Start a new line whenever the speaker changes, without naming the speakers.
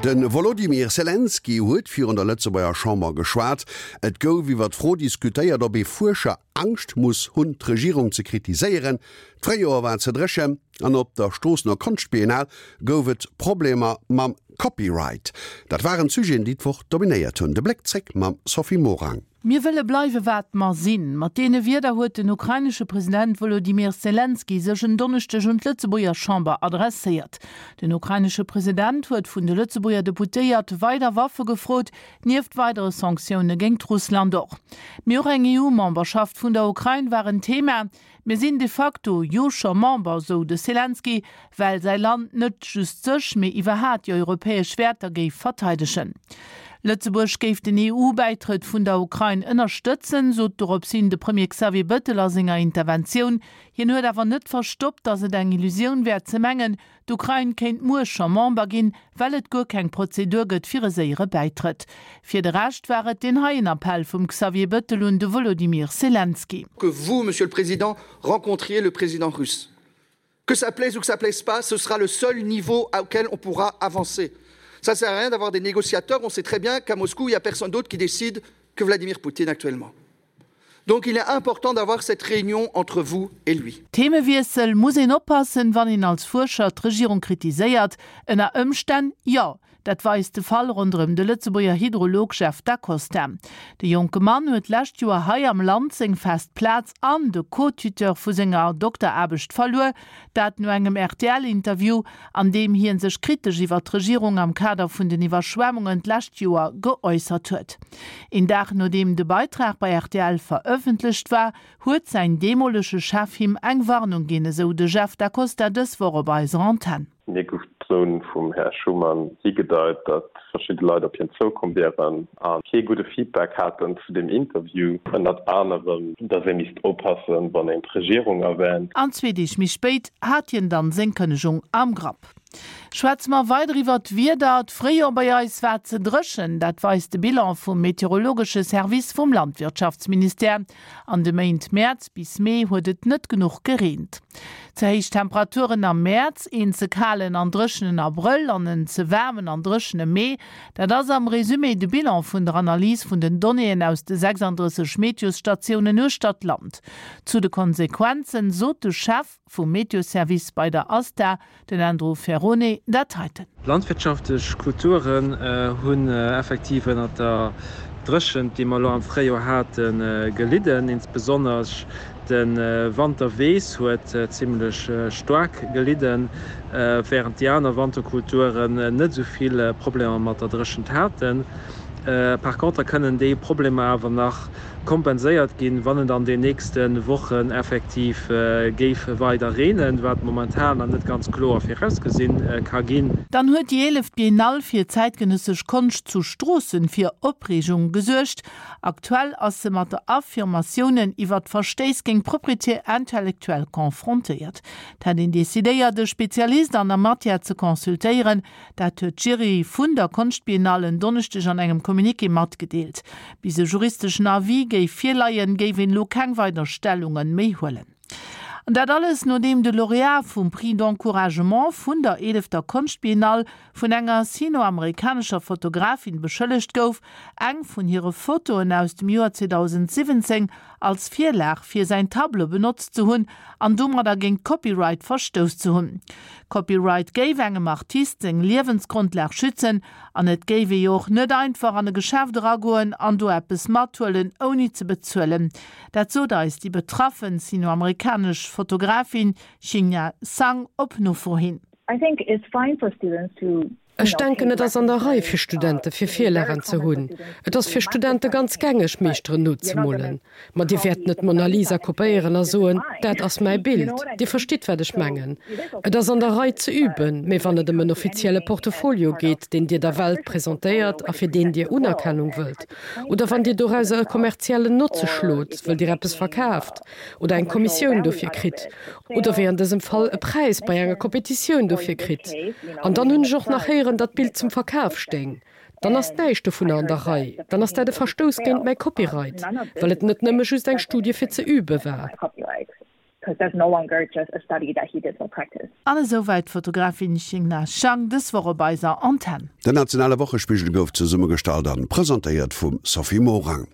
De Wolodymyr Selenskyj huet virun der Lëtzebuerger Chamber geschwat. Et gouf iwwer d'Fro diskutéiert, ob ee Fuerscher Angscht muss hunn, d'Regierung ze kritiséieren. D'Fréijoer war ze dréchen an op der Stroossener Konschtbiennale gouf et Problemer mam Copyright. Dat waren d'Sujeten, déi d'Woch dominéiert hunn. De Bléck zréck mam Sophie Morang.
Mir wëlle bleiwe wat mer sinn. Mat deene Wierder huet den ukrainesche President Wolodymyr Selenskyj sech en Donneschdeg un d'Lëtzebuerger Chamber adresséiert. Den ukrainesche President huet vun de Lëtzebuerger Deputéiert weider Waffe gefrot, nieft weidere Sanktioune géingt Russland och. Mee och eng EU-Memberschaft vun der Ukrain war en Thema. Mir sinn de facto jo scho Member, sou de Selenskyj, well säi Land net just sech, mee iwwerhat déi europäesch Wäerter géif verteidegen. Lëtzebuerg géif den EU-Bäitrëtt vun der Ukrain ënnerstëtzen, sot doropshin de Premier Xavier Bëttel a senger Interventioun. Hien huet awer net verstoppt, datt et eng Illusioun wär ze mengen, D'Ukrain kéint muer scho Member ginn, well et guer keng Prozedur gëtt fir e séiere Bäitrëtt. Fir de Rescht war et deen heien Appell vum Xavier Bëttel un de Wolodymyr Selenskyj.
Que vous, Monsieur le Président, rencontriez le président russe. Que ça plaise ou que ça plaise pas, ce sera le seul niveau auquel on pourra avancer. Ça sert à rien d'avoir des négociateurs, on sait très bien qu'à Moscou, il n'y a personne d'autre qui décide que Vladimir Poutine actuellement. Donc il est important d'avoir cette réunion entre vous et lui.
Themewiessel, Muss een oppassen, wann een als Fuerscher d'Regierung kritiséiert? Ënner Ëmstänn jo. Dat weist de Fall ronderëm de Lëtzebuerger Hydrolog Jeff Da Costa. De jonke Mann huet d'lescht Joer hei am Land seng fest Plaz an de Co-Tuteur vu senger Dokteraarbecht verluer. Dat no engem RTL-Interview, an deem hie sech kritesch iwwer d'Regierung am Kader vun den Iwwerschwemmungen d'lescht Joer geäussert huet. Een Dag nodeem de Beitrag bei rtl verëffentlecht war, huet säin deemolege Chef him eng Warnung ginn, esou de Jeff Da Costa dës Woch op eiser Antenn.
Mir gouf d'Zon vum Här Schuman higedeit, datt verschidde Leit op hien zoukomm wieren a kee gudde Feedback haten zu deem Interview. Ënnert anerem, datt ee misst oppassen, wann een d'Regierung erwänt.
An zwee Deeg méi spéit hat hien dann seng Kënnegung am Grapp. Schwätze mer weider iwwert d'Wieder. D'Fréijoer bei eis war ze dréchen, dat weist de Bilan vum meteorologesche Service vum Landwirtschaftsministère. An de Méint Mäerz bis Mee huet et net genuch gereent. Ze héich Temperaturen am Mäerz, een ze kalen an dréchenen Abrëll an en ze waarmen an dréchene Mee, dat ass am Resumé de Bilan vun der Analys vun den Donnéeën aus de 36 Meteosstatiounen uechter d'Land. Zu de Konsequenzen sot de Chef vum Meteoservice bei der ASTA, Den Andrew Ferrone dat heiten.
Landwirtschaftlech Kulturen hunn effektiv ënnert der Dréchent, déi mer elo am Fréijoer haten, gelidden. Insbesonnesch de Wanterweess huet zimmlech staark gelidden, wärend déi aner Wanterkulturen net esou vill Problemer mat der Dréchent haten. Par contre kënnen déi Problemer awer nach kompenséiert ginn, wann et an den nächste Wochen effektiv géif weider reenen, wat momentan nach net ganz kloer virausgesinn ka ginn.
Dann huet déi eeleft Biennale fir zäitgenëssesch Konscht zu Stroossen fir Opreegung gesuergt. Aktuell ass se mat der Affirmatiounen iwwert Verstéiss géint d'Propriété intellectuelle confrontéiert. Et hätt een decidéiert, e Spezialist an der Matière ze consultéieren, Dat huet d'Jury vun der Konschtbiennale en Donneschdeg an engem Communiqué matgedeelt. Bis e juristeschen Avis géif virleien, géif een elo keng weider Stellunge méi huelen. An dat alles nodeem de Laureat vum Prix d'encouragement vun der eelefter Konschtbiennale vun enger sino-amerikanescher Fotografin beschëllegt gouf, eng vun hire Fotoen aus dem Joer 2017 als Virlag fir säin Tableau benotzt ze hunn an domadder géint Copyright verstouss ze hunn. Copyright géif engem Artist seng Liewensgrondlag schützen an et géif ee jo och net einfach an e Geschäft eragoen an do eppes mathuelen ouni ze bezuelen. Dat sot eis déi betraffen sino-amerikanesch Fotografin Xinha Sang op Nofro hin.
I think it's fine for students to Ech denken, et ass an der Rei fir Studente fir Virlagen ze hunn. Et ass fir Studente ganz gängeg, Meeschteren nozemolen. Ma Dir wäert net d'Mona Lisa kopéieren a soen, dat ass mäi Bild. Dir verstitt, wat ech mengen. Et ass an der Rei ze üben, mee wann et ëm en offizielle Portefolio geet, deen Dir der Welt presentéiert a fir deen Dir Unerkennung wëllt, oder wann Dir dorauser e kommerziellen Notze schlot, wëll Dir eppes verkaaft, oder eng Kommissioun dofir kritt oder wéi an dësem Fall e Präis bei enger Kompetitioun dofir kritt. An dann hunn ech och nach héieren, datt d'Bild zum Verkaf stéing. Dann ass näischt dovunner an der Rei. Dann ass dat e Verstouss géint mäi Copyright, well et net nëmme just eng Studie fir ze übe war.
'cause that's no longer just a study that he did for practice.
An esouwäit d'Fotografin Xingna Shang dës Woch op eiser Antenn.
Den nationale Wochespigel gouf zesummegestallt an presentéiert vum Sophie Morang.